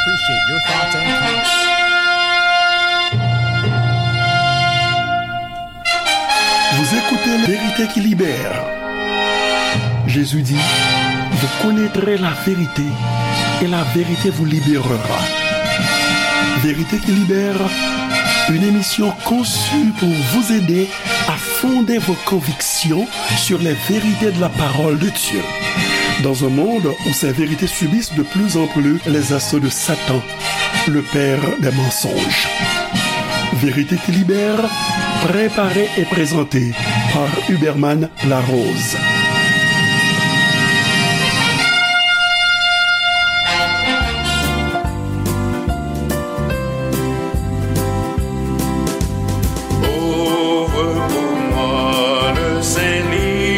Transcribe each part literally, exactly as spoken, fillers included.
Appreciate your thoughts and comments. Vous écoutez La Vérité qui libère. Jésus dit, vous connaîtrez la vérité et la vérité vous libérera. Vérité qui libère, une émission conçue pour vous aider à fonder vos convictions sur les vérités de la parole de Dieu. Dans un monde où ces vérités subissent de plus en plus les assauts de Satan, le père des mensonges. Vérité qui libère, préparée et présentée par Huberman Larose. Ouvre pour moi le Saint-Livre,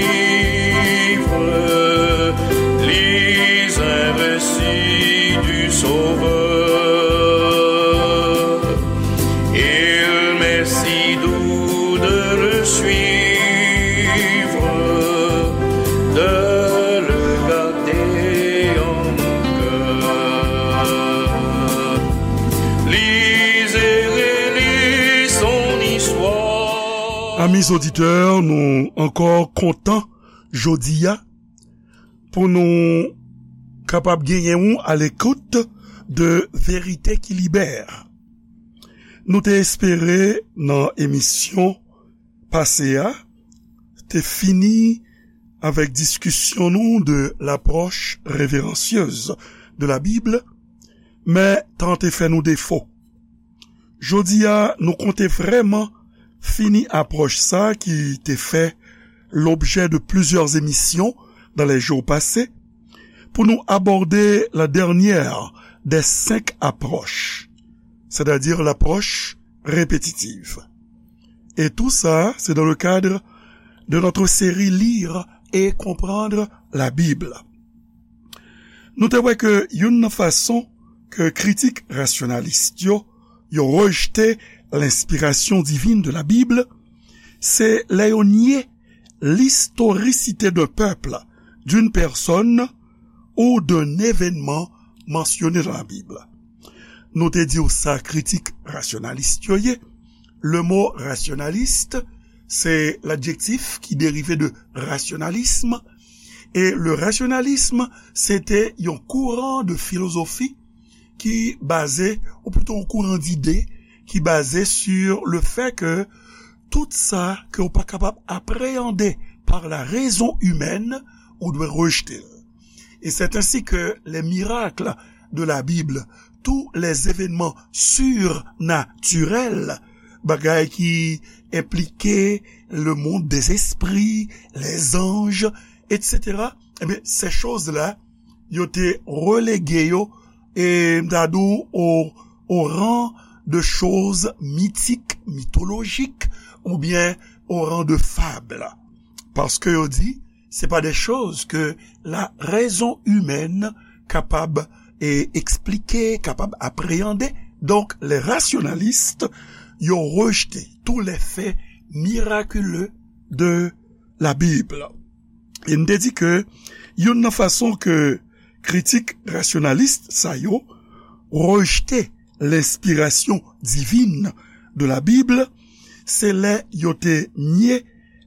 lis un récit du Sauveur. Il m'est si doux de le suivre, de le garder en mon cœur. Lis et relis son histoire. Amis auditeurs, nou ankò kontan jodi a pou nou kapab genyen w à l'écoute de Vérité qui libère. Nou te espere nan emisyon pase a te fini avèk diskisyon nou de l'approche révérencieuse de la Bible, men tan te fè nou defo. Jodi a, nou konte vrèman fini apwòch sa ki te fè l'objet de plusieurs émissions dans les jours passés, pou nou abòde la dernière des cinq approches, c'est-à-dire l'approche répétitive. Et tout ça, c'est dans le cadre de notre série Lire et comprendre la Bible. Nou te wè ke youn nan fason ke kritik rasyonalis yo, yo rejte lenspirasyon divin de la Bible, se lè yo nye l'historicité d'un peuple, d'une personne ou d'un événement mentionné dans la Bible. Nou te di w sa kritik rasyonalis yo ye. Le mot rationaliste, c'est l'adjectif qui dérive de rationalisme. Et le rationalisme, c'était un courant de philosophie ki baze, ou plito yon kouran dide ki baze sur le fait que tout sa ke ou pa kapab apréyande par la raison humaine, ou dwe rejte l. Et c'est ainsi que les miracles de la Bible, tous les événements surnaturels, bagay ki enplike le monde des esprits, les anges, et cetera, eh bien, ces choses-là, yo te relege yo, e m ta di w, au, au rang de choses mythiques, mythologiques, oubyen au rang de fable. Paske yo di, se pa de choz ke la rezon imèn kapab, e, eksplike, kapab apreyande. Donk, les rationalistes, yo rejte tous les faits miraculeux de la Bible. E n te di ke youn nan fason ke kritik rasyonalis sa yo rejte lenspirasyon divin de la Bible, se lè yo te nye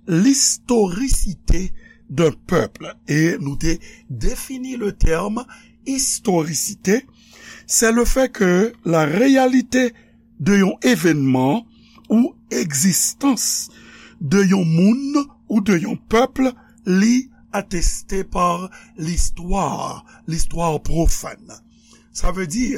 l'historicité d'un peuple. E nou te defini le terme historicité, c'est le fait que la réalité de yon evènman ou egzistans de yon moun ou de yon pèp, li ateste pa listwa, listwa pwofàn. Sa vle di,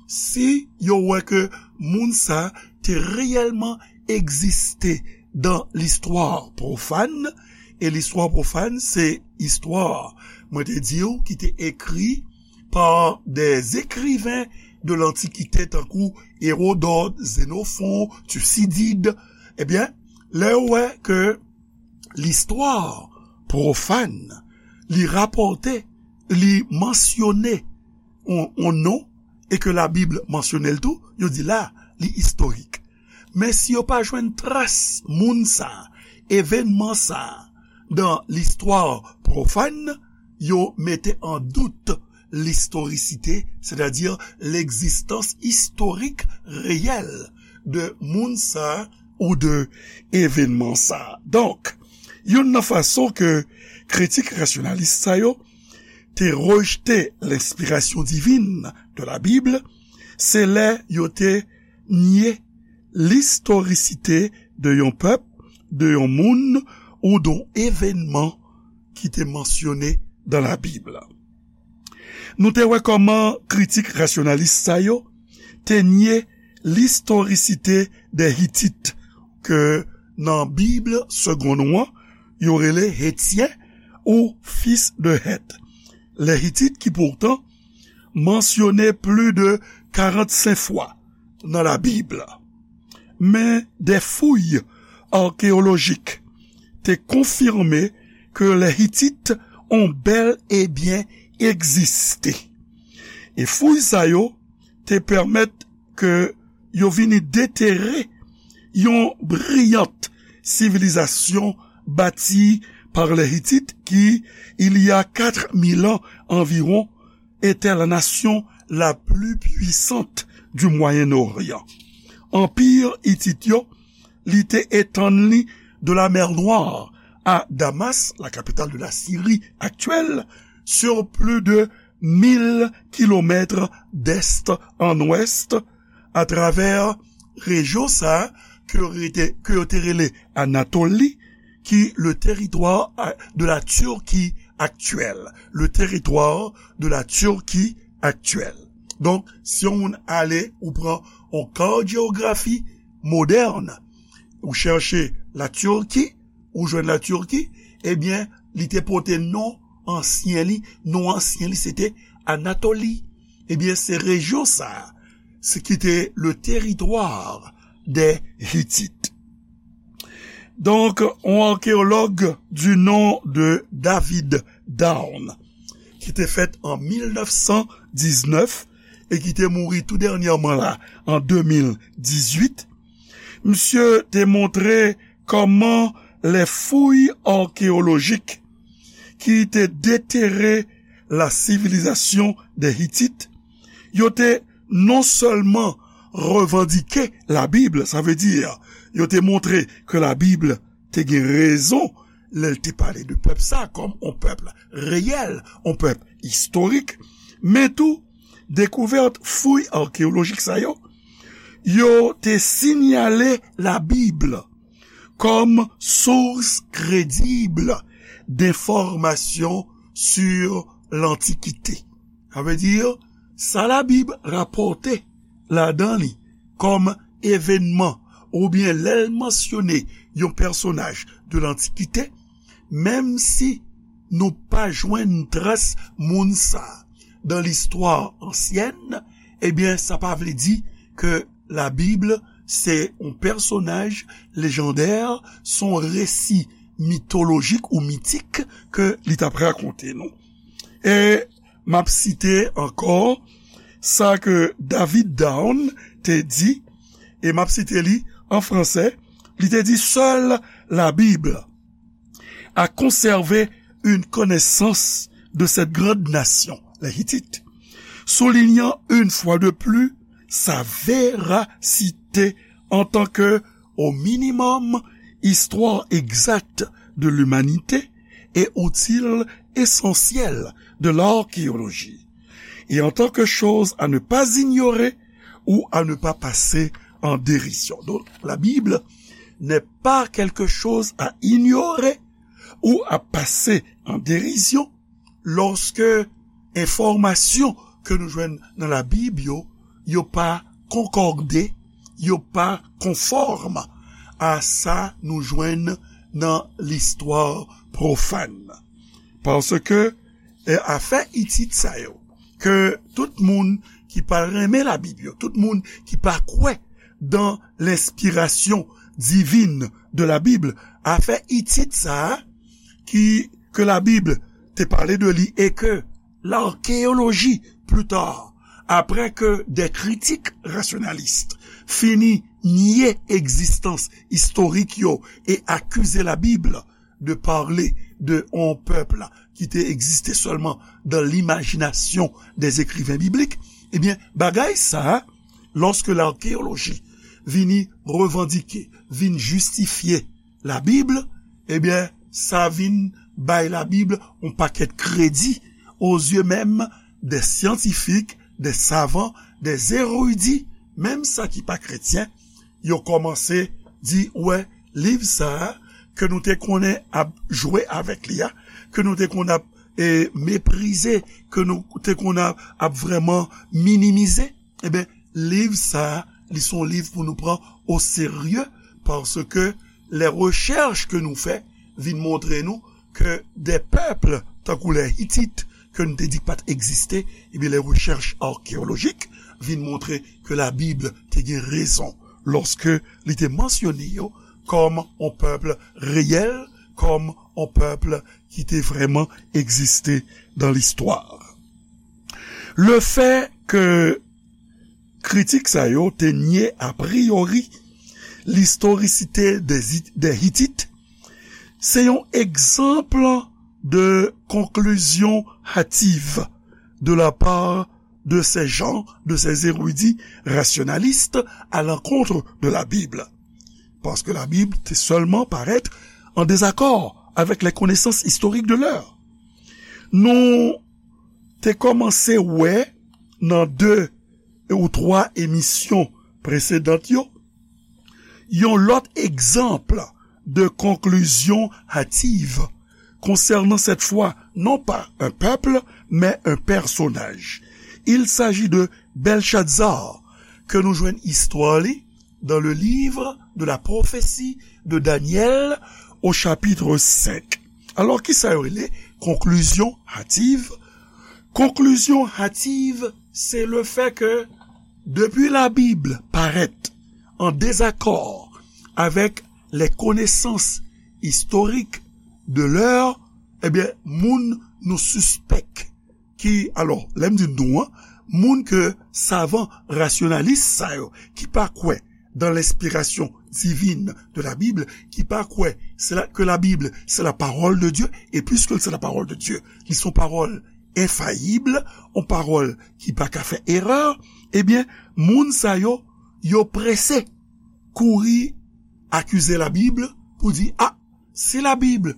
si yo wè ke moun sa te reyèlman egziste dan listwa pwofàn, e listwa pwofàn se istwa, mwen te di w, ki te ekri par des écrivains de l'Antiquité, tankou Hérodote, Xénophon, Thucydide, ebyen, lè yo wè ke listwa pwofàn, li rapòte, li mansyone yon, yon non, e ke Labib mansyone l tou, yo di la, li istorik. Men si yo pa jwenn tras moun sa, evènman sa, dan listwa pwofàn, yo mete an dout l'historicité, c'est-à-dire l'existence historique réelle de moun sa ou de evènman sa. Donk, youn nan fason ke kritik rasyonalis sa yo te rejte lenspirasyon divin de la Bible, se lè yo te nye listorisite de yon pèp, de yon moun ou de yon evènman ki te mansyone dan la Bib. Nou te wè kòman kritik rasyonalis sa yo te nye listorisite de Hitit, ke nan Bib segonn ou an, yo rele Hetyen ou fis de Hèt. Les Hitites ki poutan mansyone pli de karannsenk fwa nan la Bib. Men de fouy akeyolojik te konfime ke les Hitites ont bel et bien existé. E fouy sa yo te pèmèt ke yo vini detere yon briyant sivilizasyon bâtie par les Hittites qui, il y a quatre mille ans environ, était la nation la plus puissante du Moyen-Orient. Anpi Itit yo, li te etann li de la mer Noire à Damas, la capitale de la Syrie actuelle, sur plus de mil kilomètres d'est en ouest, atravè rejyon sa a ke yo rete, ke yo te rele Anatoli, ki le territoire de la Turquie actuelle. Le territoire de la Turquie actuelle. Donk, si yon moun ale, ou pran yon kat jewografi modèn, ou chèche la Turquie, ou jwenn la Turquie, ebyen, li te pote non ansyen li, non ansyen li se te Anatoli. Ebyen, se rejyon sa a, se ki te le territoire des Hittites. Donk, yon akeyològ du nom de David Down, ki te fèt an mil nèf san diznèf e ki te mouri tou dènyèman la, an de mil dizuit, misye te montre kòman les fouilles archéologiques ki te detere la civilisation des Hittites, yo te non sèlman revandike la Bib, sa vle di, yo te montre ke la Bib te gen rezon lè l te pale de pèp sa kòm yon pèp reyèl, yon pèp istorik, men tou, dekouvèt fouy akeyolojik sa yo, yo te sinyale la Bib kòm source crédible d'information sur l'Antiquité. Sa vle di, sa la Bib rapòte ladan li kòm evènman oubyen lè l mansyone yon pèsonaj de l'Antiquité, menm si nou pa jwenn tras moun sa a dans l'histoire ancienne, ebyen, sa pa vle di ke la Bib se yon pèsonaj lejandè, se yon resi mitolojik ou mitik ke li t ap rakonte nou. E m ap site ankò sa ke David Down te di, e m ap site li an fransè, li te di, seule la Bible a conservé une connaissance de cette grande nation, les Hittites, soulignant une fois de plus sa véracité en tant que, au minimum, histoire exacte de l'humanité et outil essentiel de l'archéologie, et en tant que chose à ne pas ignorer ou à ne pas passer en dérision. Donc, la Bible n'est pas quelque chose à ignorer ou à passer en dérision lorsque enfòmasyon ke nou jwenn nan la Bib yo, yo pa konkòde, yo pa konfòm a sa nou jwenn nan listwa pwofàn. Paske, e, afè Itit sa yo, ke tout moun ki pa renmen la Bib yo, tout moun ki pa kwè dans l'inspiration divine de la Bible, afè Itit sa a, ki, ke la Bib te pale de li e ke l'archéologie, plus tard, après que des critiques rationalistes fini nye egzistans istorik yo e akize la Bib de parler de yon pèp ki te egziste sèlman dans l'imagination des écrivains bibliques, ebyen, bagay sa a, lòske lakeyoloji vini revandike, vin jistifye Labib, ebyen, sa vin bay Labib yon pakèt kredi aux yeux même des scientifiques, des savants, des érudits, menm sa ki pa kretyen, yo kòmanse di, wè, liv sa a, ke nou te konnen ap jwe avèk li a, ke nou te konn ap, e, meprize, ke nou te konn ap, ap vrèman minimize, ebyen, liv sa a, li se yon liv pou nou pran au sérieux, paske les recherches ke nou fè vin montre nou ke des peuples tankou les Hittites, ke nou te di pa t egziste, ebyen, les recherches archéologiques vin montre ke Labib te gen rezon lòske li te mansyone yo kòm yon pèp reyèl, kòm yon pèp ki te vrèman egziste dans l'histoire. Le fait que kritik sa yo te nye a priori l'historicité des, des Hittites, se yon egzanp de conclusion hâtive de la part de ces gens, de ces érudits rationalistes à l'encontre de la Bible. Paske Labib te sèlman parèt an dezakò avèk les connaissances historiques de l'heure. Nou te kòmanse wè nan de ou twa emisyon presedan yo, yon lòt egzanp de conclusion hâtive concernant cette fois non pas un peuple, mais un personnage. Il s'agit de Belshazzar, ke nou jwenn istwa li dans le livre de la prophétie de Daniel au chapitre cinq. Alò, kisa yo rele conclusion hâtive? Conclusion hâtive, se le fait que depuis Labib parèt an dezakò avèk les connaissances historiques de l'heure, ebyen, moun nou sispèk ki, alò, lè m di nou an, moun ke savan rasyonalis sa yo, ki pa kwè dans l'inspiration divine de la Bible, ki pa kwè se la, que la Bible, c'est la parole de Dieu, et puisque c'est la parole de Dieu, li se yon pawòl enfayib, yon pawòl ki pa ka fè erè, ebyen, moun sa yo, yo prese kouri akize Labib pou di, a, si Labib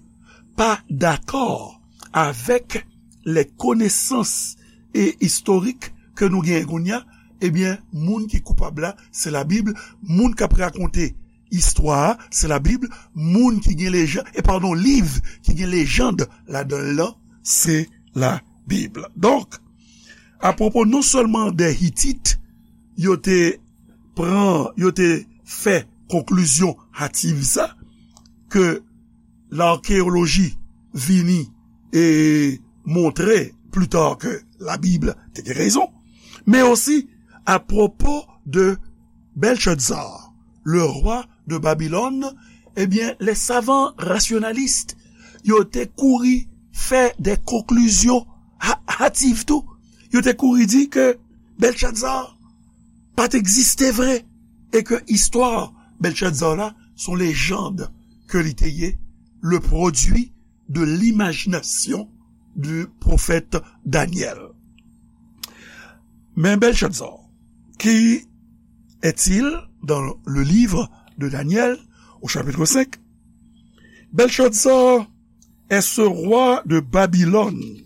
pa dakò avèk les connaissances e istorik ke nou genyen kounye a, ebyen, moun ki koupab la, se Labib, moun k ap rakonte istwa a, se Labib, moun ki gen lejan, e padon, liv ki gen lejand ladan l lan, se Labib. Donk, apwopo non sèlman de Hitit, yo te pran, yo te fè konklizyon hativ sa, ke lakeyoloji vini e montre pli ta ke Labib te gen rezon, men osi apwopo de Belshazzar, le roi de Babylone, ebyen, les savants rationalistes, yo te kouri fè de konklizyon ha-, hativ tou. Yo te kouri di ke Belshazzar pa t egziste vre, e ke istwa Belshazzar la, se yon lejand ke li te ye, le produit de l'imagination du prophète Daniel. Men Belshazzar, qui est-il dans le livre de Daniel, au chapitre cinq? Belshazzar est ce roi de Babylone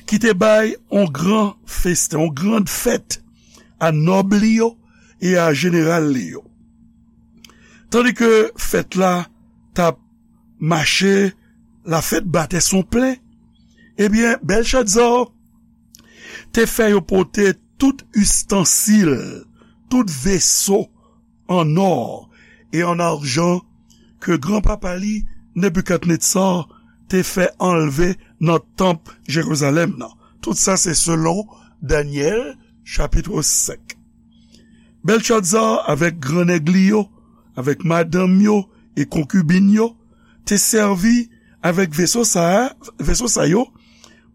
qui te bay yon gran festen, yon gran fèt a nòb li yo e a jeneral li yo. Tandi ke fèt la t ap mache, la fête battait son plein, ebyen, Belshazzar te fè yo pote tout istansil, tout veso an nò e an ajan ke granpapa li, Nebikadnetza, te fè anlve nan tanp Jerizalèm nan. Tout sa se selon Danyèl, chapit senk. Belshazzar avèk grannèg li yo, avèk madanm yo e konkibin yo, te sèvi avèk veso sa a, veso sa yo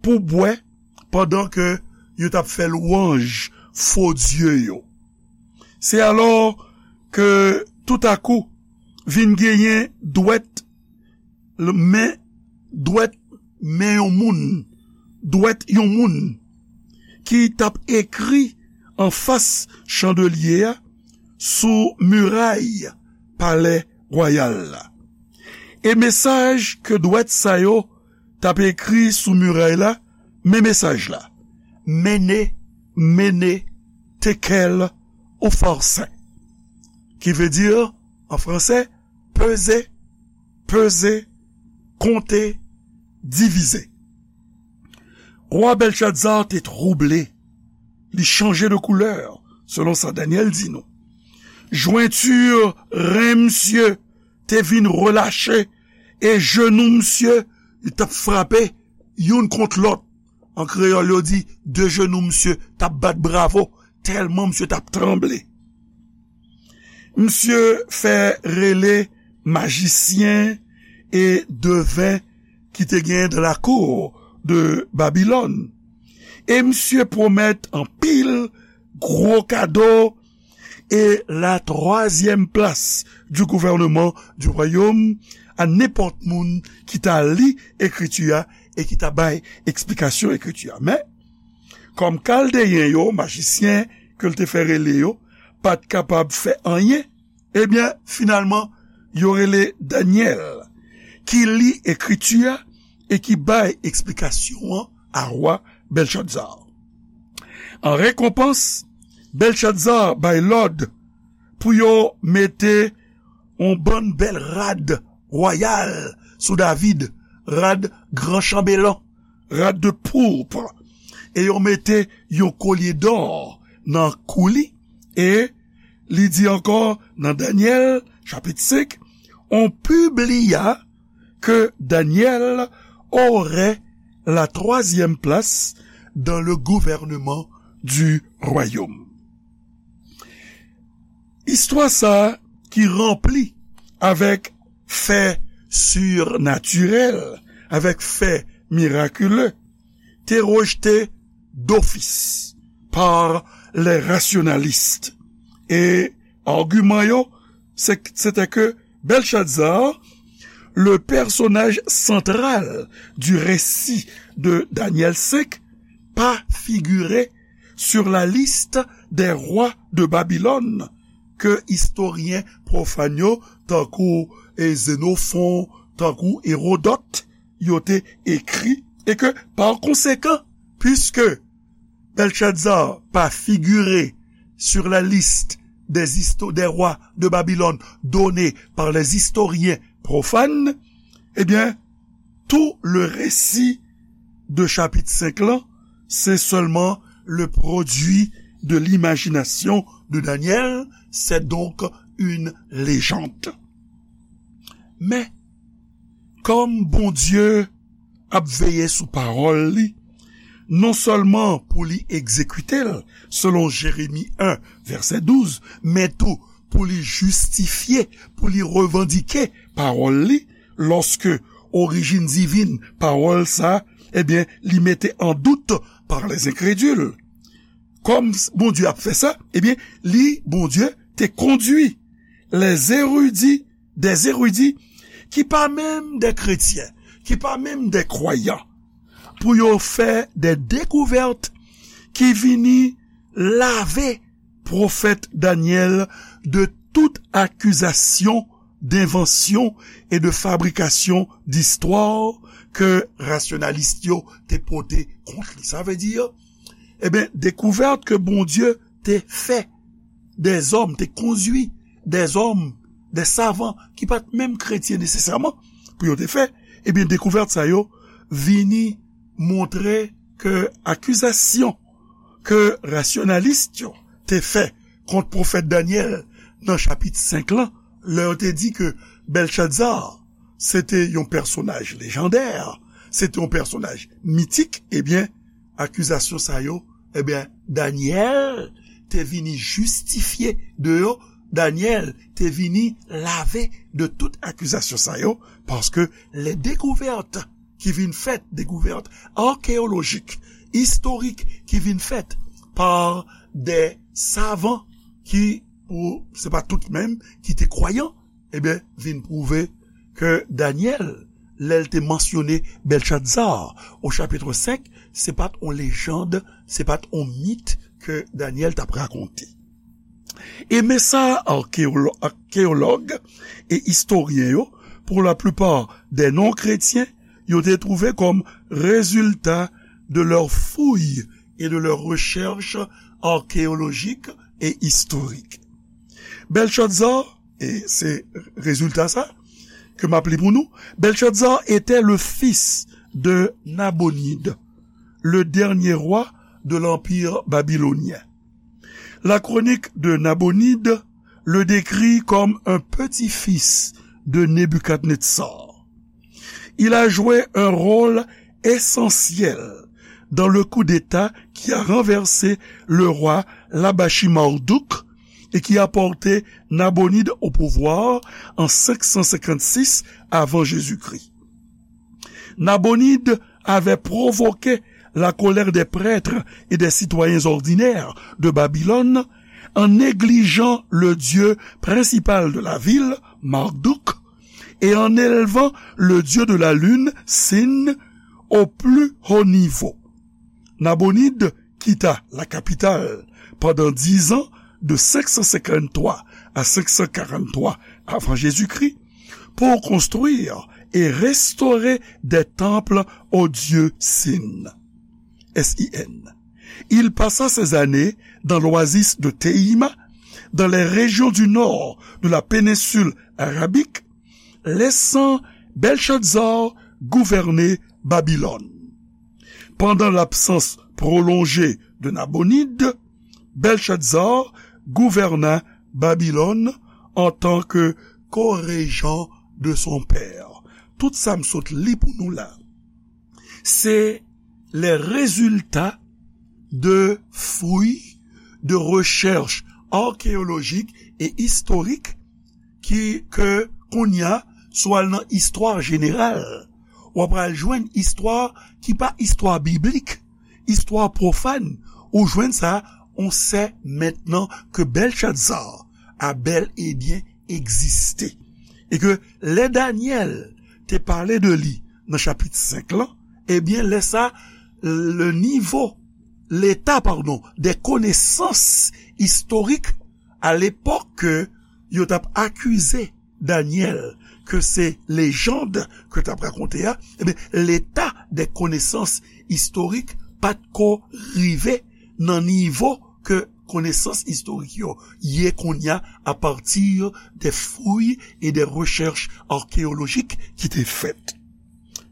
pou bwè pandan ke yo t ap fè lwanj fo dye yo. Se alò ke toutakou vin genyen dwèt l-, men dwèt men yon moun, dwèt yon moun ki t ap ekri anfas chandelye a sou miray palè wayal la. E mesaj ke dwèt sa yo t ap ekri sou miray la, men mesaj la: Mene, mene, tekel ou forse. Ki vle di, an fransè, peze, peze, konte, divize. Wa Bèlchazar te twouble. Li chanje de koulè, selon sa Danyèl di nou. Jwenti ren misye te vin relache, e jenou misye, li t ap frape youn kont lòt. An kreyòl, yo di, de jenou misye t ap bat bravo, tèlman misye t ap tranble. Misye fè rele majisyen e deven ki te gen dans la cour de Babylone. E misye pwomèt anpil gwo kado e la troisième place du gouvernement du royaume a nenpòt moun ki ta li ekriti a e ki ta bay eksplikasyon ekriti a. Men, kòm Kaldeyen yo, majisyen ke l te fè rele yo, pa t kapab fè anyen, ebyen, finalman, yo rele Danyèl, ki li ekriti a e ki bay eksplikasyon an a wa Bèlchazar. An rekonpans, Bèlchazar bay lòd pou yo mete yon bann bèl rad wayal sou David, rad gran chanbelan, rad de pourpre, e yo mete yon kolye dò nan kou li, e li di ankò nan Danyèl, chapit senk, on publia que Daniel aurait la troisième place dans le gouvernement du royaume. Istwa sa ki ranpli avèk fè sirnatirèl, avèk fè mirakile, te rejte dofis pa lè rasyonalis. E agiman yo, se, se te ke Bèlchazar, le personnage central du récit de Daniel senk, pa figire sur la liste des rois de Babylone ke istoryen pwofàn yo, tankou, e, Xénophon, tankou Hérodote, yo te ekri, e ke, pa konsekan, puiske Bèlchazar pa figire sur la liste des histo-, des rois de Babylone donnée par les historiens profanes, eh bien, tout le récit de chapitre cinq là, c'est seulement le produit de l'imagination de Daniel, c'est donc une légende. Men, kòm Bondye ap veye sou pawòl li, non sèlman pou li egzekite l, selon Jeremi en, vèsè douz, men tou pou li jistifye, pou li revandike pawòl li, lòske orijin divin pawòl sa, ebyen, li mete an dout pa lè enkredil. Kòm Bondye ap fè sa, ebyen, li, Bondye, te kondui lè zeridi, dè zeridi, ki pa menm dè kretyen, ki pa menm dè kwayan, pou yo fè dè dekouvèt ki vini lave pwofèt Danyèl de tout akizasyon d'invention et de fabrication d'histoire ke rasyonalis yo te pote kont li. Sa vle di, ebyen, dekouvèt ke Bondye te fè dèzòm, te kondui dèzòm, dè savan ki pa t menm kretyen nesesèman pou yo te fè, ebyen, dekouvèt sa yo vini montre ke akizasyon ke rasyonalis yo te fè kont pwofèt Danyèl nan chapit senk lan, lè yo te di ke Bèlchazar se te yon pèsonaj lejandè, se te yon pèsonaj mitik, ebyen, akizasyon sa yo, ebyen, Danyèl te vini jistifye de yo, Danyèl te vini lave de tout akizasyon sa yo, paske lè dekouvèt ki vin fèt, dekouvèt akeyolojik, istorik ki vin fèt pa dè savan ki, pou, se pa tout menm, ki te kwayan, ebyen, vin pwouve ke Danyèl, lè l te mansyone Bèlchazar o chapit senk, se pa t yon lejann, se pa t yon mit ke Danyèl t ap rakonte. E men sa, arkéolo-, arkéològ e istoryen yo, pour la plupart des non-chrétiens, yo te twouve kòm rezilta de leurs fouilles et de leurs recherches archéologiques et historiques. Bèlchazar, e se rezilta sa ke m ap li pou nou, Bèlchazar était le fils de Nabonide, le dernier roi de l'Empire babylonien. La chronique de Nabonide le décrit comme un petit-fils de Nebuchadnezzar. Il a joué un rôle essentiel dans le coup d'État qui a renversé le roi Labashi Marduk et qui a porté Nabonide au pouvoir en cinq cent cinquante-six avant Jésus-Christ. Nabonide avait provoqué la colère des prêtres et des citoyens ordinaires de Babylone en négligeant le dieu principal de la ville, Marduk, et en élevant le dieu de la lune, Sin, au plus haut niveau. Nabonide quitta la capitale pendant dix ans, de cinq cent cinquante-trois à cinq cent quarante-trois avant Jésus-Christ, pour construire et restaurer des temples au dieu Sin. S I N. Il passa ces années dans l'oasis de Théima, dans les régions du nord de la péninsule arabique, laissant Belshazzar gouverner Babylone. Pendant l'absence prolongée de Nabonide, Belshazzar gouverna Babylone en tant que co-régent de son père. Tout sa m sot li pou nou la, se les résultats de fouilles, de recherches archéologiques et historiques ki, ke kounye a, si w al nan istwa jeneral, w ap al jwenn istwa ki pa istwa biblik, istwa pwofàn, ou jwenn sa, on sait maintenant que Belshazzar a bel et bien existé. E ke lè Danyèl te pale de li nan chapit senk lan, ebyen, lè sa, le nivo, leta, padon, de konesans istorik a lepòk ke yo t ap akize Danyèl ke se lejann ke t ap rakonte a, ebyen, leta de konesans istorik pa t ko rive nan nivo ke konesans istorik yo ye kounye a, à partir des fouilles et des recherches archéologiques ki te fèt.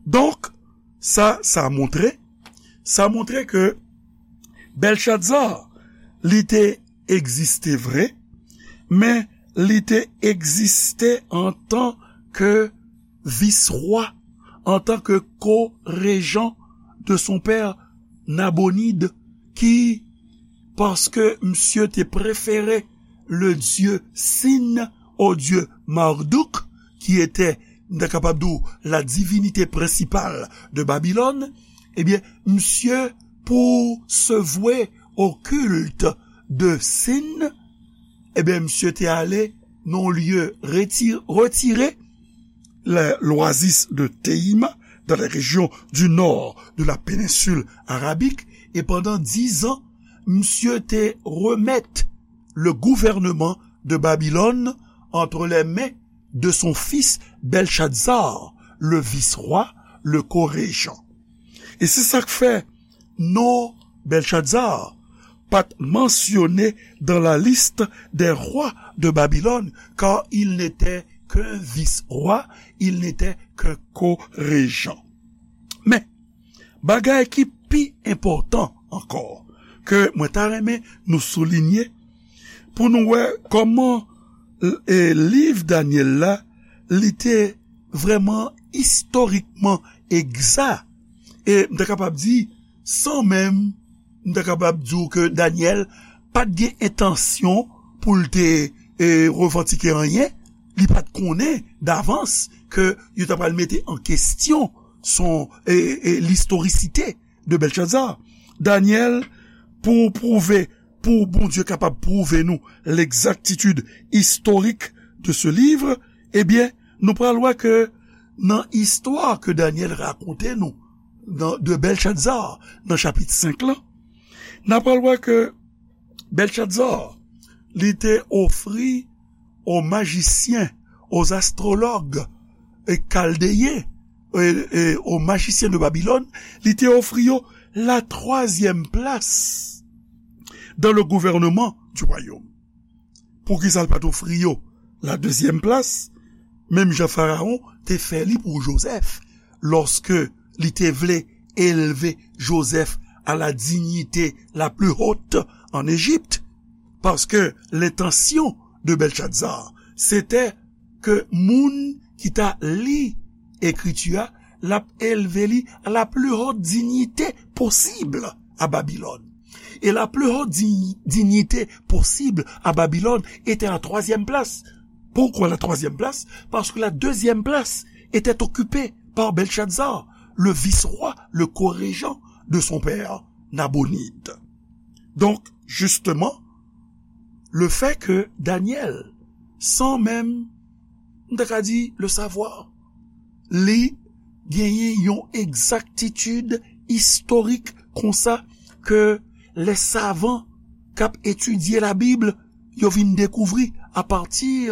Donk, sa, sa montre, sa montre ke Belshazzar, li te egziste vre, men li te egziste antan ke vis-rwa, antan ke ko-rejan de son père Nabonide, ki, paske misye te prefere le dieu Sin au dieu Marduk, qui était, m ta kapab di w, la divinité principale de Babylone, ebyen, misye, pour se vouer au culte de Sin, ebyen, misye te ale nan yon lye reti-, retire, le, l'oasis de Teima, dans les régions du nord de la péninsule arabique, e pandan dizan, misye te remèt le gouvernement de Babylone entre les mains de son fils Belshazzar, le vice-roi, le co-régent. E se sa k fè non Belshazzar pa t mansyone dans la liste des rois de Babylone, car il n'était qu'un vice-roi, il n'était qu'un co-régent. Men, bagay ki pi enpòtan ankò, ke mwen ta renmen nou soulinye, pou nou wè kòman, e, liv Danyèl la, li te vrèman istorikman egza. E m ta kapab di, san menm, m ta kapab di w ke Danyèl pa t gen entansyon pou l te, e, revandike anyen. Li pa t konnen davans ke yo ta pral mete an kesyon son, e, e, listorisite de Belshazzar. Danyèl, pou pwouve, pou Bondye kapab pwouve nou l'exactitude historique de ce livre, ebyen, nou pral wè ke Nan istwa ke Danyèl rakonte nou nan, de Bèlchazar nan chapit senk lan, n a pral wè ke Bèlchazar, li te ofri aux magiciens, aux astrologues, e kaldeyen, e, e aux magiciens de Babylone, li te ofri yo la troisième place dans le gouvernement du royaume. Poukisa l pa t ofri yo la deuxième place, menm jan Farawon te fè li pou Jozèf, lòske li te vle elve Jozèf à la dignité la plus haute en Égypte? Paske lentansyon de Bèlchazar, se te ke moun ki ta li ekriti a, l ap elve li à la plus haute dignité possible à Babylone. Et la plus haute di- dignité possible à Babylone était la troisième place. Pourquoi la troisième place? Parce que la deuxième place était occupée par Belshazzar, le vice-roi, le co-régent de son père, Nabonide. Donc, justement, le fait que Daniel, sans même, m ta ka di, le savoir, li genyen yon egzaktitid istorik konsa ke lè savan k ap etidye Labib, yo vin dekouvri apati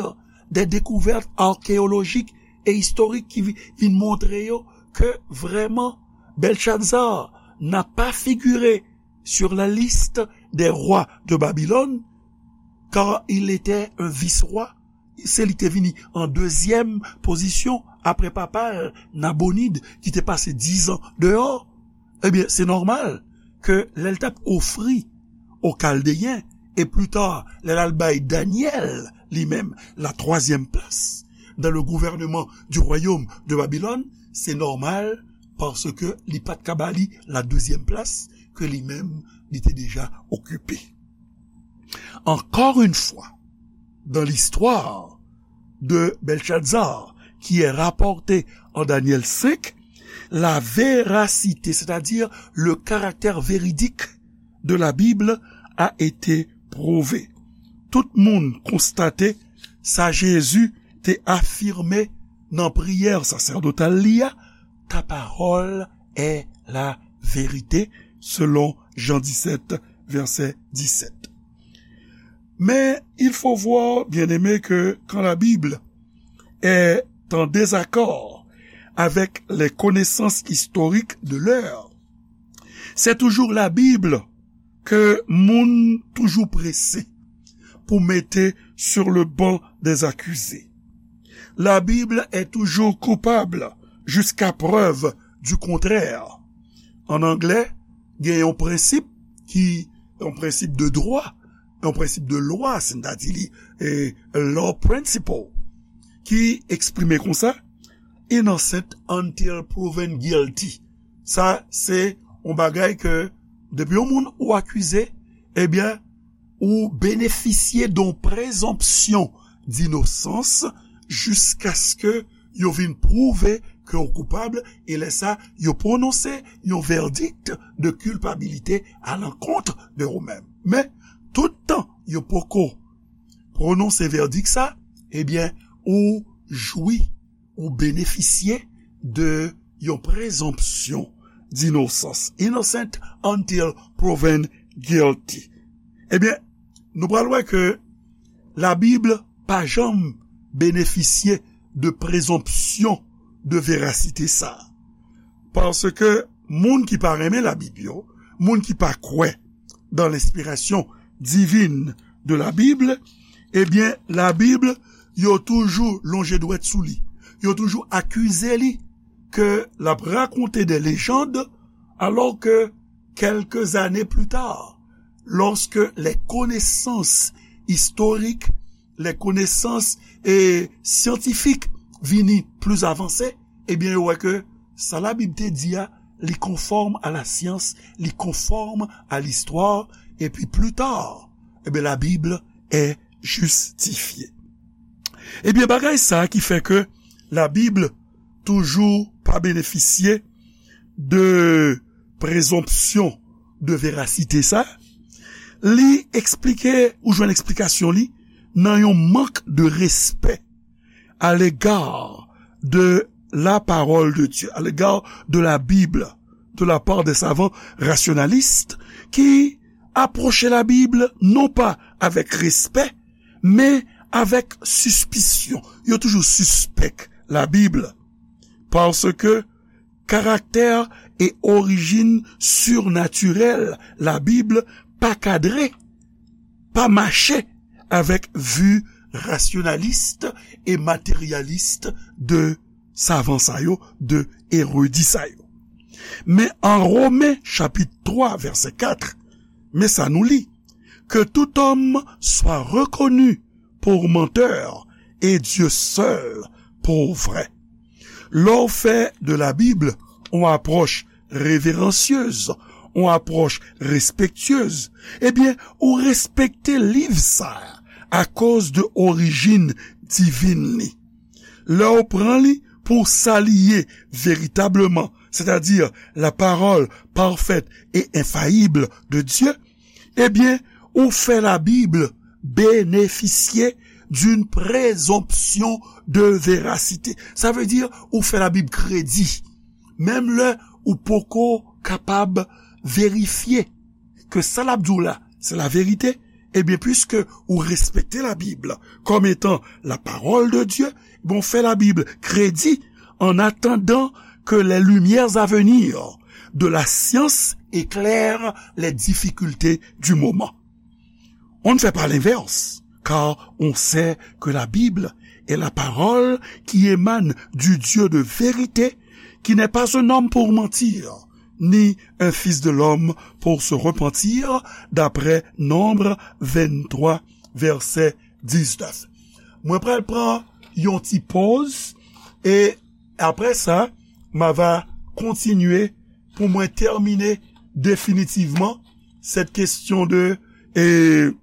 de dekouvèt akeyolojik e istorik ki vi- vin montre yo ke vrèman Belshazzar n'a pas figuré sur la liste des rois de Babylone, car il était un vice-roi. Se li te vini an dezyèm pozisyon apre papa l, Nabonid, ki te pase diz an deyò. Ebyen, se nòmal ke lè l t ap ofri o Kaldeyen, e pli ta, lè l al bay Danyèl, li menm, la troisième place dans le gouvernement du royaume de Babylone, se nòmal, paske li pa t ka ba li la deuxième place ke li menm, li te deja okipe. Encore une fois, dans l'histoire de Belshazzar, qui est rapportée en Daniel cinq, la véracité, c'est-à-dire le caractère véridique de la Bible, a été prouvée. Tout moun konstate sa Jezi te afime nan priyè sasèdotal li a, ta parole est la vérité, selon Jean dix-sept, verset dix-sept. Mais il faut voir, bien-aimés, que quand la Bible est en désaccord avec les connaissances historiques de l'heure, c'est toujours la Bible ke moun toujou prese pou mete sur le banc des accusés. La Bible est toujours coupable jusqu'à preuve du contraire. An anglè, gen yon prensip ki, yon prensip de dwa, yon prensip de lwa, sètadi li, e, law principle, ki eksprime konsa, innocent until proven guilty. Sa, se yon bagay ke depi yon moun ou akize, ebyen, ou benefisye de yon prezonpsyon dinosans jiskaske yo vin pwouve ke w koupab, e lè sa, yo pwononse yon vèdik de kilpabilite alankont de ou menm. Men, tout tan yo poko pwononse vèdik sa, ebyen, ou jwi, ou benefisye de yon prezonpsyon dinosans. Innocent until proven guilty. Ebyen, nou pral wè ke Labib pa janm benefisye de prezonpsyon de verasite sa. Paske moun ki pa renmen Labib yo, moun ki pa kwè dans l'inspiration divine de la Bible, ebyen, Labib, yo toujou lonje dwèt sou li. Yo toujou akize li ke l ap rakonte de lejand, alors que quelques années plus tard, lorsque les connaissances historiques, les connaissances, eh, scientifiques vini plis avanse, ebyen, yo wè ke sa Labib te di a, li konfòm a la syans, li konfòm a listwa, epi pli ta, ebyen, Labib est justifiée. Ebyen, bagay sa ki fè ke Labib toujou pa benefisye de prezonpsyon de verasite sa, li eksplike, ou jwenn eksplikasyon li nan yon mank de respè à l'égard de la parole de Dieu, à l'égard de la Bible, de la part des savants rationalistes qui approchaient la Bible non pas avec respect, mais avec suspicion. Yo toujou sispèk la Bib, paske karaktè e orijin sirnatirèl la Bib pa kadre, pa mache avèk vi rasyonalis e materyalis de savan sa yo, de eredi sa yo. Men an Women chapit twa vèsè kat, men sa nou li, que tout homme soit reconnu pour menteur et Dieu seul pour vrai. Lè w fè de la Bible yon apwòch reveransyez, yon apwòch respektyez, ebyen, ou respekte liv sa a akoz de orijin divin li. Lè w pran li pou sa li ye veritableman, sètadi la parole parfaite et infaillible de Dieu, ebyen, ou fè la Bib benefisye d'une présomption de véracité. Sa vle di, ou fè la Bib kredi, menm lè ou poko kapab verifye ke sa l ap di w la, se la verite, ebyen, piske ou respekte la Bib kòm etan la parole de Dieu, bon, fè la Bib kredi en attendant que les lumières à venir de la science éclairent les difficultés du moment. On ne fait pas l'inverse, car on sait que la Bible est la parole qui émane du Dieu de vérité, qui n'est pas un homme pour mentir, ni un fils de l'homme pour se repentir, d'après Nombre vennntwa, vèsè diznèf. Mwen pral pran yon ti poz, e apre sa, m a va kontinye pou mwen tèmine definitivman cette question de, e,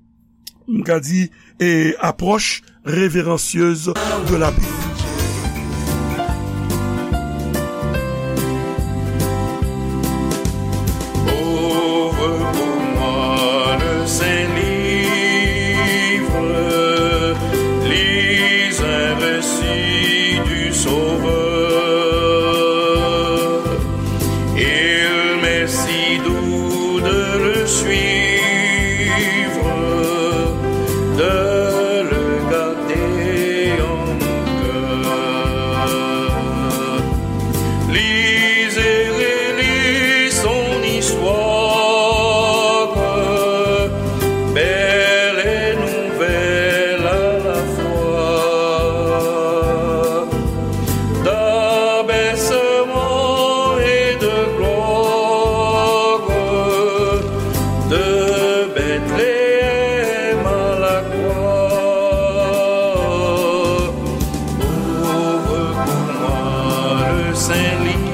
m ka di, e, approche révérencieuse de la Bible. Ouvre pour moi le saint livre, lis un récit du Sauveur. Il m'est si doux de le suivre, de le garder en mon cœur. Lis et relis son histoire, belle et nouvelle à la fois. D'abaissement et de gloire, de Bethléem à la croix. Ouvre pour moi le saint livre,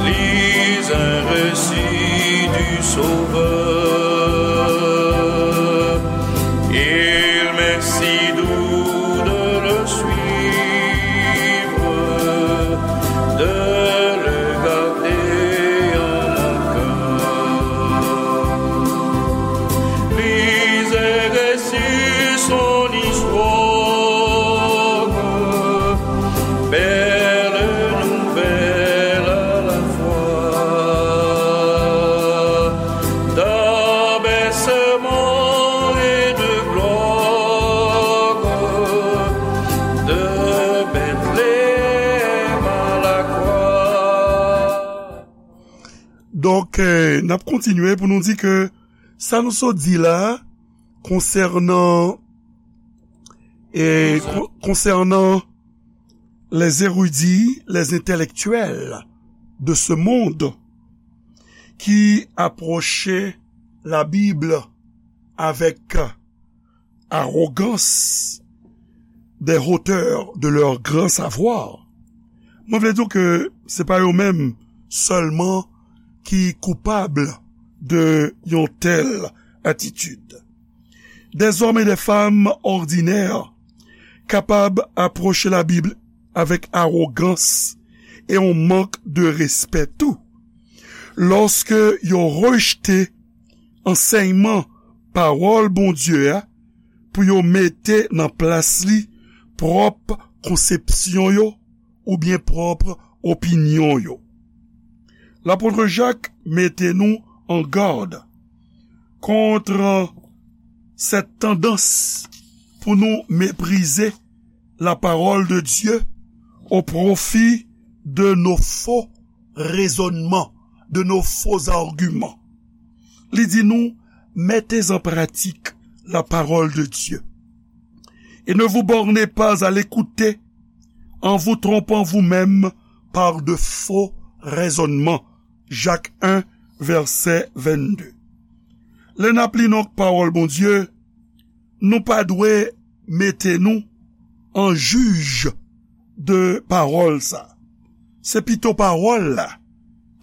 lis un récit du Sauveur. Il m'est si doux de le suivre, de le garder en mon cœur. Lis et récite son histoire, belle nouvelle à la fois. D'abaissement et de gloire, de Bethléem à la croix. Donk, eh, n ap kontinye pou nou di ke sa nou sot di la, konsènan, eh, kon-, konsènan les érudits, les intellectuels de ce monde ki apwoche la Bib avèk arogans, des hauteurs de leur grand savoir. Mwen vle di w ke se pa yo menm sèlman ki koupab de yon tèl atitid. Des hommes et des femmes ordinaires kapab apwoche la Bib avèk arogans e yon mank de respè tou. Lòske yo rejte ansèyman pawòl Bondye a pou yo mete nan plas li pwòp konsepsyon yo oubyen pwòp opinyon yo. Lapot Jak mete nou an gad kont cette tendance pou nou meprize la parole de Dieu au profit de nos faux raisonnements, de nos faux arguments. Li di nou, mettez en pratique la parole de Dieu. Et ne vous bornez pas à l'écouter en vous trompant vous-même par de faux raisonnements. Jak en, vèsè vennde. Lè n ap li nan pawòl Bondye, nou pa dwe mete nou an jij de pawòl sa. Se pito pawòl la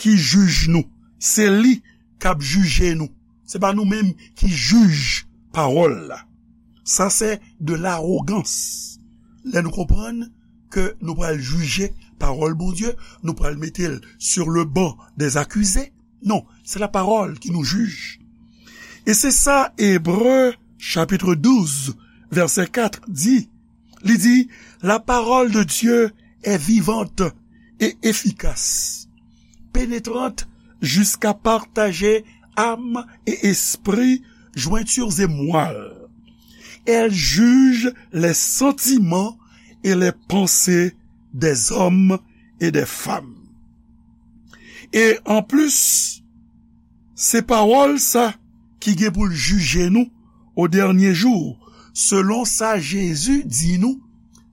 ki jij nou. Se li k ap jije nou. Se pa nou menm ki jij pawòl la. Sa se de larogans. Lè nou konprann ke nou pral jije pawòl Bondye, nou pral mete l sur le banc des accusés. Non, se la parole qui nous juge. E se sa Ebre chapit douz, vèsè kat di. Li di, la parole de Dieu est vivante et efficace, pénétrante jusqu'à partager âme et esprit, jointures et moelle. Elle juge les sentiments et les pensées des hommes et des femmes. E anplis, se pawòl sa ki gen pou l jije nou o dènye jou, selon sa Jezi di nou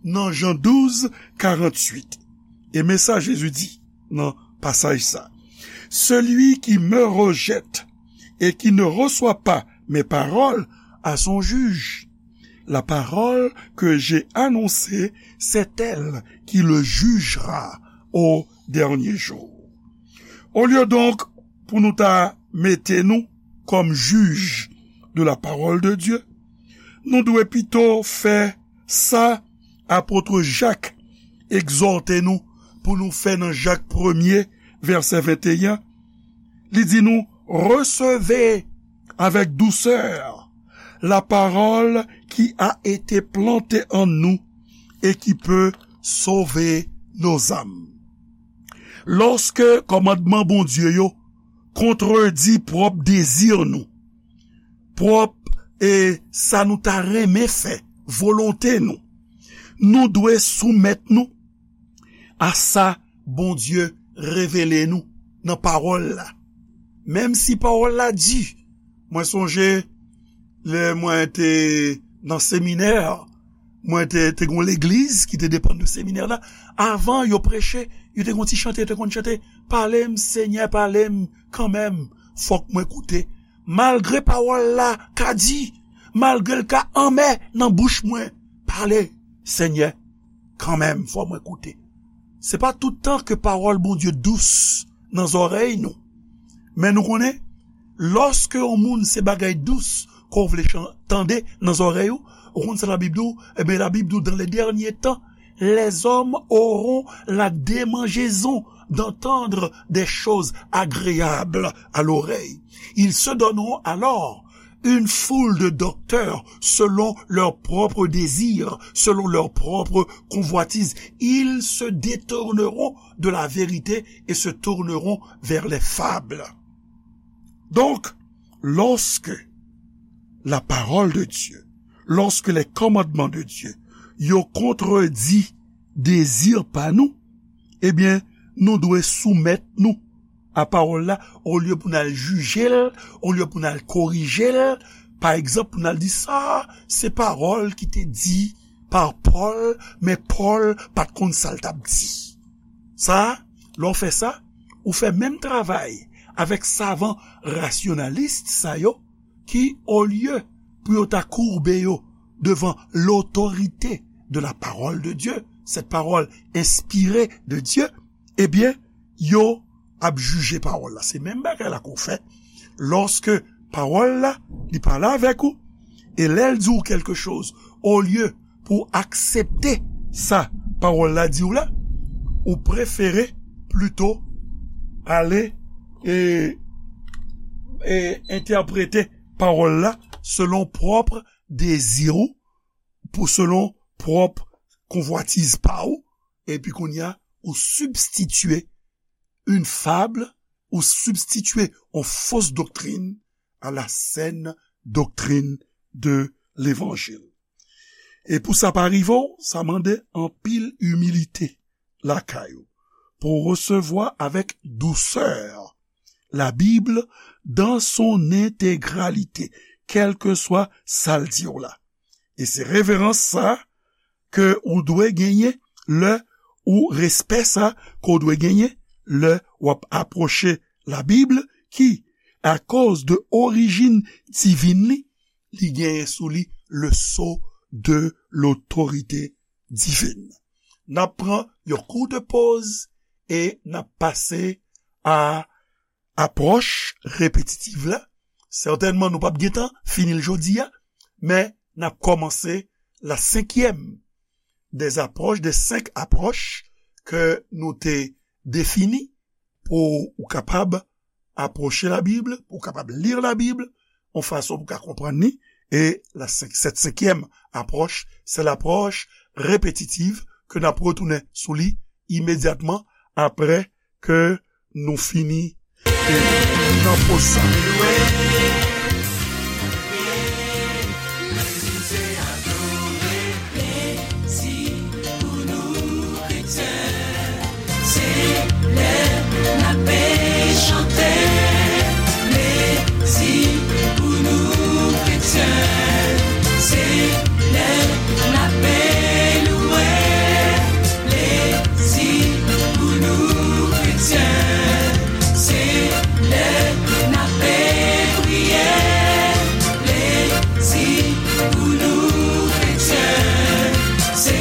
nan Jan douz, karanntuit. E men sa Jezi di nan pasaj sa, celui qui me rejette et qui ne reçoit pas mes paroles a son juge. La parole que j'ai annoncée, c'est elle qui le jugera au dernier jour. Olye donk pou nou ta mete nou kòm jij de la parole de Dieu, nou dwe pito fè sa apot Jak egzòte nou pou nou fè nan Jak premye, vèsè venteyen. Li di nou, recevez avec douceur la parole qui a été plantée en nous et qui peut sauver nos âmes. Lòske kòmandman Bondye yo kontredi pwòp dezi nou, pwòp, e, sa nou ta renmen fè, volonte nou, nou dwe soumèt nou a sa Bondye revele nou nan pawòl la. Menm si pawòl la di, mwen sonje lè mwen te nan seminè, mwen te, te gon legliz ki te depann de seminè la. Avan yo preche, yo te gon ti chante, yo te konn chante, pale m, Senyè, pale m kanmenm, fòk mwen koute. Malgre pawòl la ka di, malgre l ka anmè nan bouch mwen, pale, Senyè, kanmenm, fò mwen koute. Se pa tout tan ke pawòl Bondye dous nan zòrèy nou. Men nou konnen, lòske yon moun se bagay dous ke w vle chan-, tande nan zòrèy ou, ou konn sa Labib di w? Ebyen, Labib di w, dans les derniers temps, les hommes auront la démangeaison d'entendre des choses agréables à l'oreille. Ils se donneront alors une foule de docteurs selon leurs propres désirs, selon leurs propres convoitises. Ils se détourneront de la vérité et se tourneront vers les fables. Donc, lorsque la parole de Dieu, lorsque les commandements de Dieu, yo kontredi dezi pa nou, ebyen, nou dwe soumèt nou a pawòl la, olye pou n al jije l, olye pou n al korije l. Pa egzanp, pou n al di sa, se pawòl ki te di pa Pòl, men Pòl pa t konn sa l t ap di. Sa, lè w fè sa, ou fè menm travay avèk savan rasyonalis sa yo, ki, olye pou yo ta koube yo devan l'autorité de la parole de Dieu, cette parole inspirée de Dieu, ebyen, yo ap jije pawòl la. Se menm bagay la ke w fè lòske pawòl la, li pale avèk ou, e lè l di w kèlke choz, olye pou w aksepte sa pawòl la di w la, ou prefere plito ale e, e entèprete pawòl la selon pwòp dezi ou, pou selon pwòp konvwatiz pa w, epi kounye a, ou sibstitye une fable, ou sibstitye yon fos doktrin à la saine doctrine de l'évangile. E pou sa pa rive w, sa mande anpil imilite lakay ou, pou w resevwa avèk dousè la Bible dans son intégralité, kèlkeswa sa l di w la. E se reverans sa ke ou dwe genyen lè, ou respè sa ke w dwe genyen lè w ap apwoche la Bible, ki, akoz de orijin divin li, li genyen sou li le sceau de l'autorité divine. N ap pran yon kout poz e n ap pase a apwòch repetitiv la. Sètènman, nou p ap gentan fini l jodi a, men n ap kòmanse la cinquième des approches, des cinq approches ke nou te defini pou ou kapab apwoche la Bible, pou ou kapab li la Bible, yon fason pou ou ka konprann li. E la senk, cette cinquième approche, c'est l'approche répétitive ke n ap retounen sou li imedyatman apre ke nou fini e nan poz sa. Se lè n ap chante plezi pou nou kretyen. Se lè n ap louwe plezi pou nou kretyen. Se lè n ap priye plezi pou nou kretyen. Se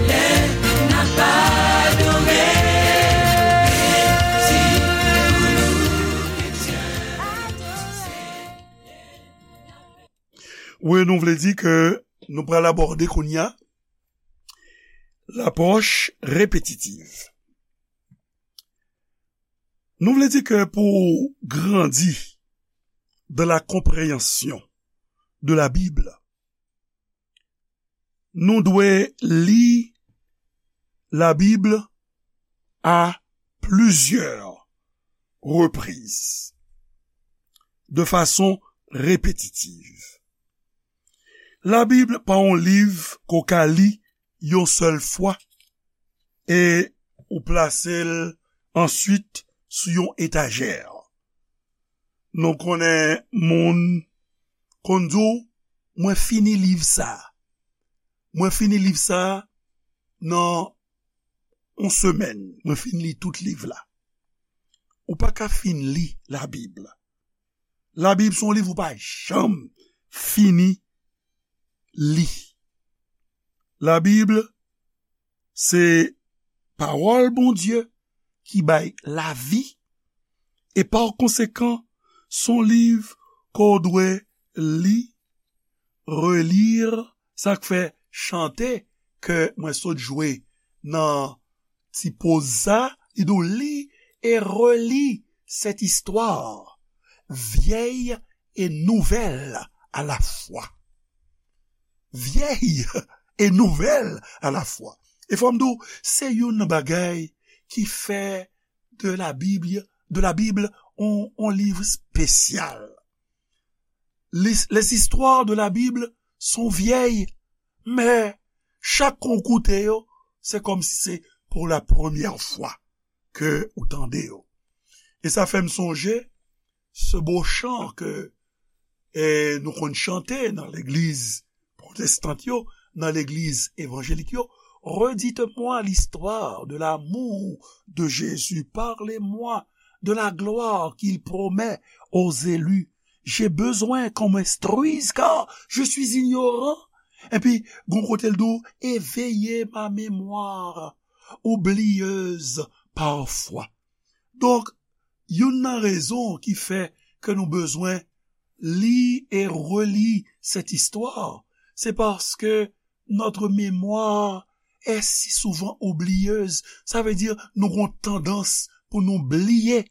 lè n ap adore. Plezi pou nou kretyen. Wi, nou vle di ke nou pral abòde kounye a lapwòch repetitiv. Nou vle di ke pou grandi dans la compréhension de la Bible, nou dwe li la Bible à plusieurs reprises, de façon répétitive. La Bible pa yon liv ke w ka li yon sèl fwa e ou plase l answit sou yon etajè. Nou konnen moun konn di w, "Mwen fini liv sa a. Mwen fini liv sa a nan yon semèn. Mwen fin li tout liv la." Ou pa ka fin li Labib. Labib se yon liv ou pa janm fini li. Labib se pawòl Bondye ki bay lavi, e pa konsekan, se yon liv ke w dwe li, reli, sa k fè chante ke mwen sot jwe nan ti poz sa, li di w, lis et relis cette histoire vieille et nouvelle à la fois. Vieille et nouvelle à la fois. E fò m di w, se youn nan bagay ki fè de la Bible, de la Bible, on, on liv espesyal. Les, les histoires de la Bible sont vieilles, men chak kou w koute yo, se kòmsi se pour la première fois ke ou tande yo. E sa fè m sonje se bo chan ke, e, nou konn chante nan legliz pwotestant yo, nan legliz evanjelik yo, redites-moi l'histoire de l'amour de Jésus, parlez-moi de la gloire qu'il promet aux élus. J'ai besoin qu'on m'instruise, car je suis ignorant. Epi, gon kote l di w, éveillez ma mémoire oublieuse parfois. Donk, youn nan rezon ki fè ke nou bezwen li e reli cette histoire, c'est parce que notre mémoire est si souvent oublieuse. Sa vle di, nou gon tandans pou nou bliye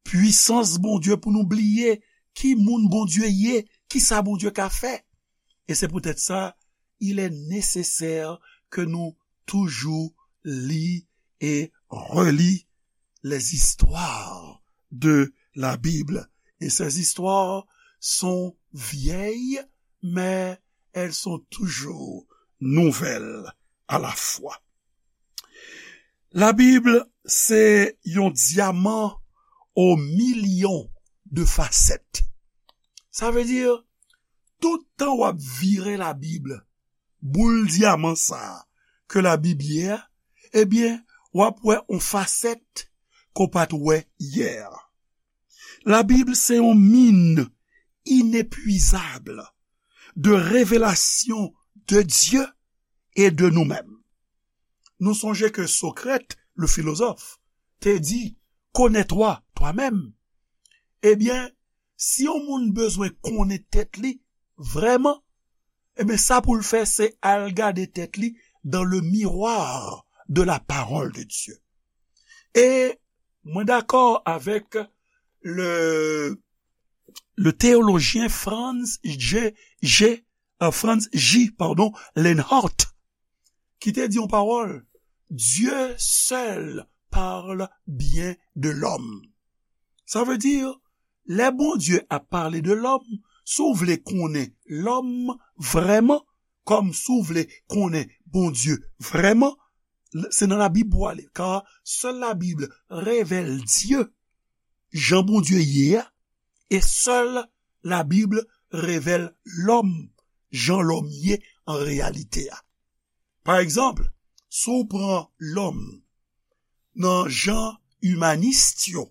pwisans Bondye, pou nou bliye ki moun Bondye ye, ki sa Bondye ka fè. E se poutèt sa, il est nécessaire que nous toujours lire et relire les histoires de la Bible. Et ces histoires sont vieilles, mais elles sont toujours nouvelles à la fois. Labib se yon dyaman o milyon de fasèt. Sa vle di, tout tan w ap vire Labib, boul dyaman sa a ke Labib ye a, ebyen, w ap wè yon fasèt ke w pa t wè yè. Labib se yon min inepwizab de revelasyon de Dye e de nou menm. Nou sonje ke Socrate, le philosophe, te di, connais-toi toi-même. Ebyen, si yon moun bezwen konnen tèt li vrèman, ebyen, sa pou l fè, se al gade tèt li dans le miroir de la parole de Dieu. E mwen dakò avèk le, le théologien Franz J, J, euh, Franz J, pardon, Lenhart, ki te di yon pawòl, Dieu seul parle bien de l'homme. Sa vle di, lè Bondye ap pale de lòm, si w vle konnen lòm vrèman, kòm si w vle konnen Bondye vrèman, se nan Labib pou w ale, car seule la Bible révèle Dieu, jan Bondye ye a, e sèl Labib revèl lòm, jan lòm ye an reyalite a. Pa egzanp, si w pran lòm nan jan imanis yo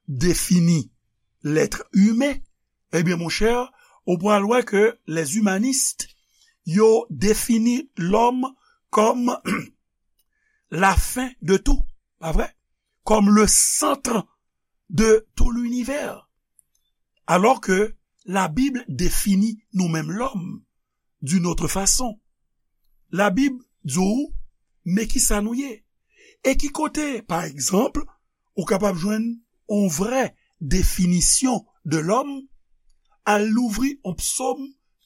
defini l'être humain, ebyen, monchè, ou pral wè ke les humanistes, yo defini lòm kòm la fin de tout, pa vre? Kòm le centre de tout l'univers. Alors que la Bible définit nous-mêmes l'homme d'une autre façon. Labib di w, men ki sa nou ye. E ki kote, pa egzanp, ou kapab jwenn yon vrè definisyon de lòm, al louvri yon psòm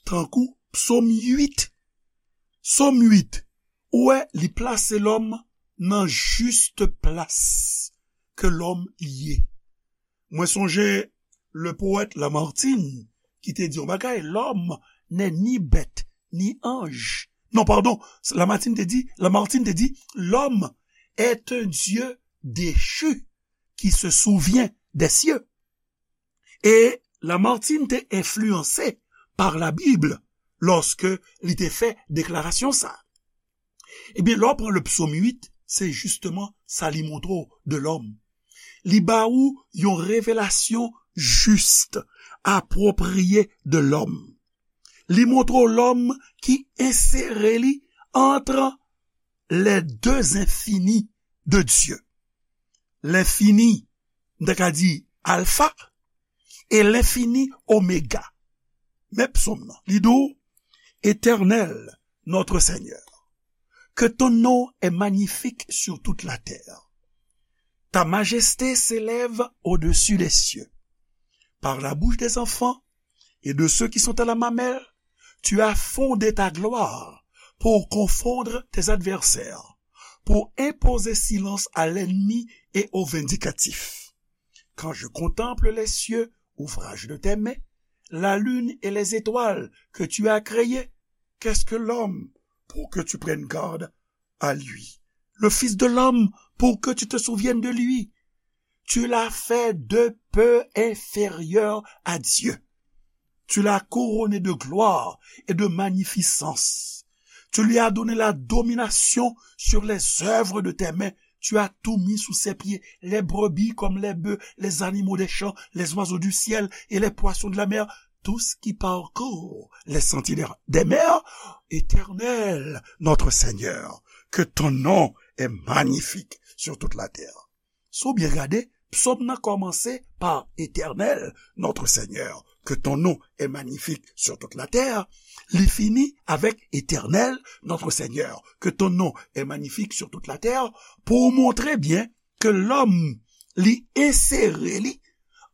tankou psòm uit. Psòm uit, ou wè, li plase lòm nan jis plas ke lòm ye. Mwen sonje le poète Lamartine ki te di yon bagay, l'homme n'est ni bête ni ange. Non, pardon, Lamartine te di, Lamartine te di, l'homme est un dieu déchu qui se souvient des cieux. E Lamartine te enfliyanse pa Labib lòske li te fè deklarasyon sa. Ebyen, lè w pran le psaume uit, se jisteman sa li montre w de lòm. Li ba ou yon revelasyon jis, apwopriye de lòm. Li montre w lòm ki ensere li entre les deux infinis de Dieu. L'infini, m ta ka di alfa, e l'infini oméga. Men psaume nan, li di w, Éternel, notre Seigneur, que ton nom est magnifique sur toute la terre. Ta majesté s'élève au-dessus des cieux. Par la bouche des enfants et de ceux qui sont à la mamelle, tu as fondé ta gloire pour confondre tes adversaires, pour imposer silence à l'ennemi et au vindicatif. Quand je contemple les cieux, ouvrage de tes mains, la lune et les étoiles que tu as créées, qu'est-ce que l'homme pour que tu prennes garde à lui? Le fils de l'homme pour que tu te souviennes de lui? Tu l'as fait de peu inférieur à Dieu. Tu l'as couronné de gloire et de magnificence. Tu lui as donné la domination sur les œuvres de tes mains. Tu as tout mis sous ses pieds, les brebis comme les bœufs, les animaux des champs, les oiseaux du ciel et les poissons de la mer, tout ce qui parcourt les sentiers des mers. Éternel, notre Seigneur, que ton nom est magnifique sur toute la terre. Si w byen gade, psòm nan kòmanse pa Éternel, notre Seigneur, que ton nom est magnifique sur toute la terre. Li fini avèk Éternel, notre Seigneur, que ton nom est magnifique sur toute la terre, pou w montre byen ke lòm, li ensere li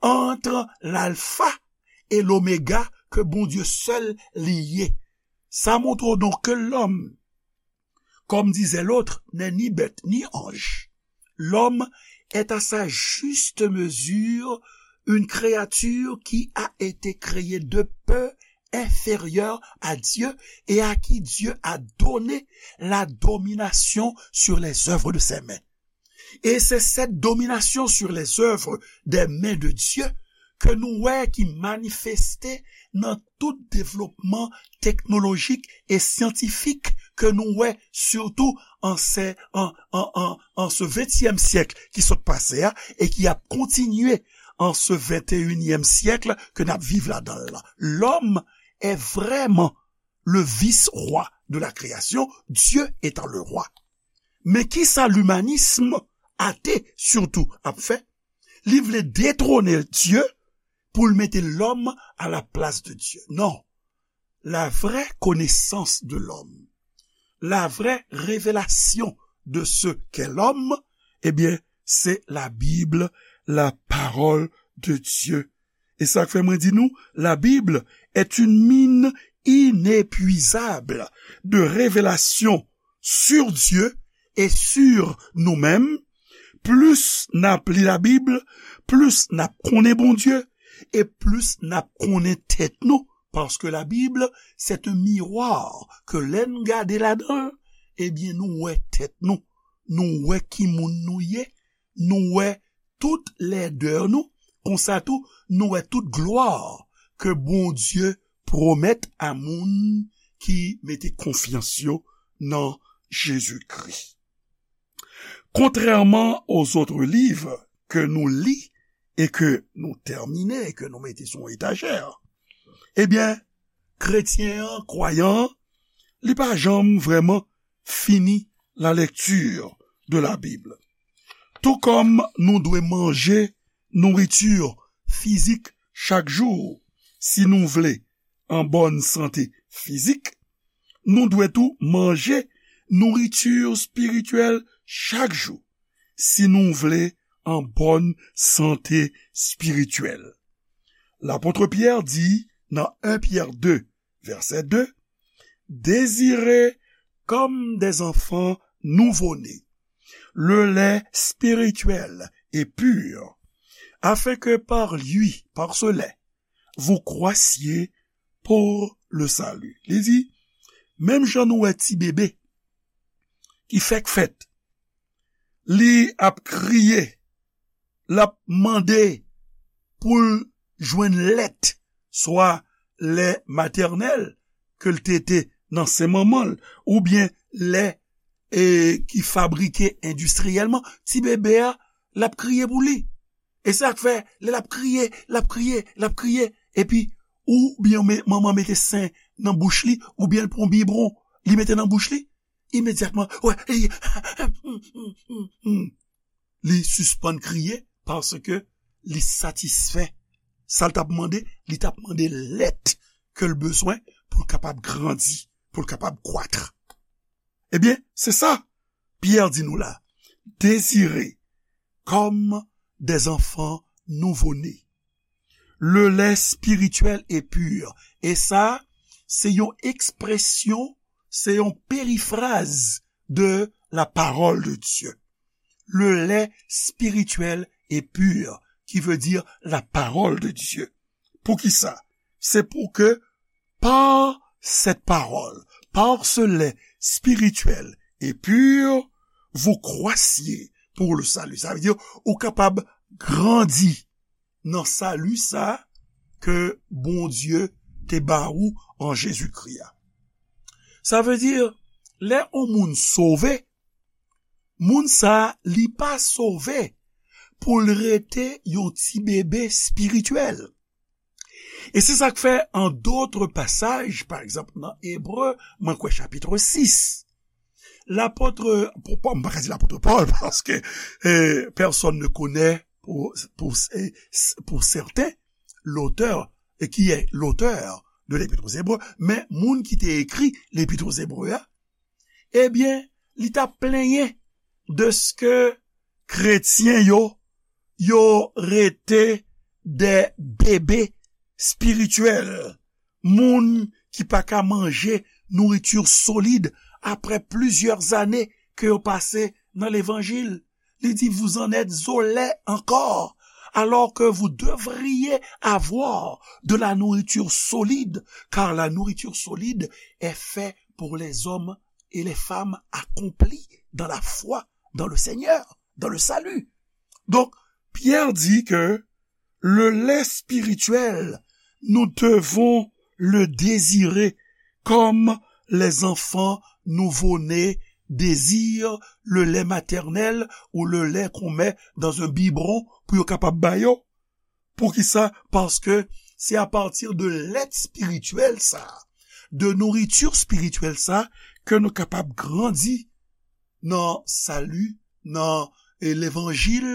ant lalfa e lomega, ke Bondye sèl li ye. Sa montre w donk ke lòm, Comme disait l'autre, n'est ni bête ni ange. L'homme est à sa juste mesure une créature qui a été créée de peu inférieure à Dieu et à qui Dieu a donné la domination sur les œuvres de ses mains. Et c'est cette domination sur les œuvres des mains de Dieu ke nou wè ki manifeste nan tout devlopman teknolojik e syantifik ke nou wè, sitou an se, an, an, an, an se ventyèm syèk ki sot pase a e ki ap kontinye an se venteyinyèm syèk ke n ap viv ladan l la. Lòm è vrèman le vice-roi de la création, Dieu étant le roi. Men kisa limanism ate sitou ap fè? Li vle detwone Dye pou l mete lòm a la plas de Dye. Non. La vraie connaissance de l'homme, la vraie révélation de ce qu'est l'homme, ebyen, se la Bible, la parole de Dieu. E sa k fè mwen di nou, la Bible est une mine inépuisable de révélations sur Dieu et sur nous-mêmes. Plis n ap li Labib, plis n ap konnen Bondye, e plis n ap konnen tèt nou. Paske Labib, c'est un miroir ke lè n gade ladan l, ebyen, nou wè tèt nou. Nou wè ki moun nou ye. Nou wè tout lèdè nou. Konsa tou, nou wè tout glwa ke Bondye pwomèt a moun ki mete konfyans yo nan Jezikri. Contrairement aux autres livres ke nou li e ke nou tèmine e ke nou mete sou yon etajè, ebyen, kretyen an, kwayan an, li pa janm vrèman fini la lecture de la Bible. Tou kòm nou dwe manje nouriti fizik chak jou si nou vle an bòn sante fizik, nou dwe tou manje nouriti espirityèl chak jou si nou vle an bòn sante espirityèl. Lapot Pyè di nan en Pyè de, vèsè de, désirez comme des enfants nouveau-nés, le lait spirituel et pur, afin que par lui, par ce lait, vous croissiez pour le salut. Li di, menm jan nou wè ti bebe ki fèk fèt, li ap kriye, l ap mande pou l jwenn lèt, swa lè matènèl ke l tete nan sen manman l, oubyen lè, e, ki fabrike endistriyèlman, ti bebe a, l ap kriye pou li. E sa k fè, lè l ap kriye, l ap kriye, l ap kriye, epi oubyen me-, manman mete sen nan bouch li, oubyen l pran bibwon, li mete nan bouch li, imedyatman, wè, li, li sispann kriye paske li satisfè. Sa l t ap mande, li t ap mande lèt ke l bezwen pou l kapab grandi, pou l kapab kwat. Ebyen, se sa Pyè di nou la. Désirez comme des enfants nouveau-nés le lait spirituel et pur. E sa, se yon ekspresyon, se yon perifraz de la parole de Dieu. Le lait spirituel et pur, qui veut dire la parole de Dieu. Poukisa? Se pou ke par cette parole, par ce lait spirituel et pur, vous croissiez pour le salut. Sa vle di, ou kapab grandi nan sali sa ke Bondye te ba ou an Jezikri a. Sa vle di, lè yon moun sove, moun sa, li pa sove pou l rete yon ti bebe espirityèl. E se sa k fè, an dòt pasaj, pa egzanp, nan Ebre, mwen kwè chapit sis, lapot, pou, pou, m pa ka di lapot Pòl, paske, eh, personne ne connaît pour, pour, eh, pour certains l'auteur, et qui est l'auteur de l'Épître aux Hébreux, men moun ki te ekri Lepit Ebre a, ebyen, li t ap plenyen dèske kretyen yo, yo rete de bebe espirityèl, moun ki pa ka manje nouriti solid après plusieurs années ke yo pase nan levanjil. Li di, vous en êtes au lait encore, alors que vous devriez avoir de la nourriture solide, car la nourriture solide est faite pour les hommes et les femmes accomplis dans la foi, dans le Seigneur, dans le salut. Donc, Pierre dit que le lait spirituel, nous devons le désirer comme les enfants nouveau-nés désirent le lait maternel ou le lait qu'on met dans un biberon pou yo kapab ba yo. Poukisa? Paske se apatir de lèt espirityèl sa, de nouriti espirityèl sa, ke nou kapab grandi nan sali, nan, e, levanjil,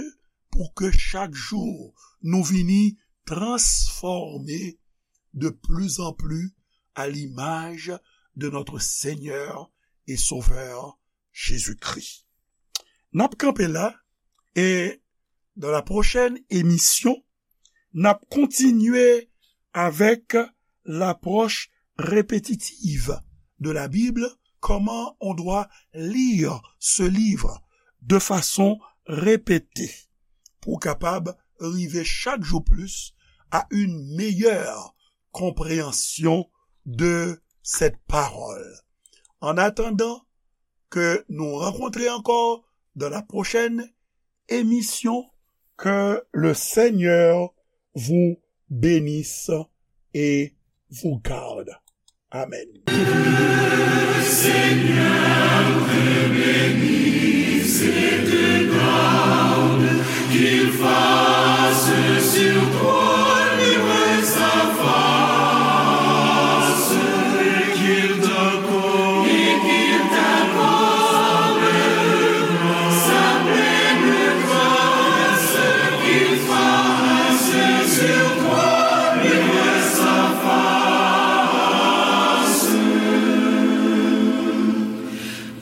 pou ke chak jou nou vini transfòme de plus en plus à l'image de notre Seigneur et Sauveur Jésus-Christ. N ap kanpe la, e dans la prochaine émission, n ap kontinye avec l'approche répétitive de la Bible, comment on doit lire ce livre de façon répétée pou kapab rive chak jou plis à une meilleure compréhension de cette parole. En attendant que nous rencontrions encore dans la prochaine émission, que le Seigneur vous bénisse et vous garde. Amen. Que le Seigneur te bénisse et te garde, qu'il fasse sur toi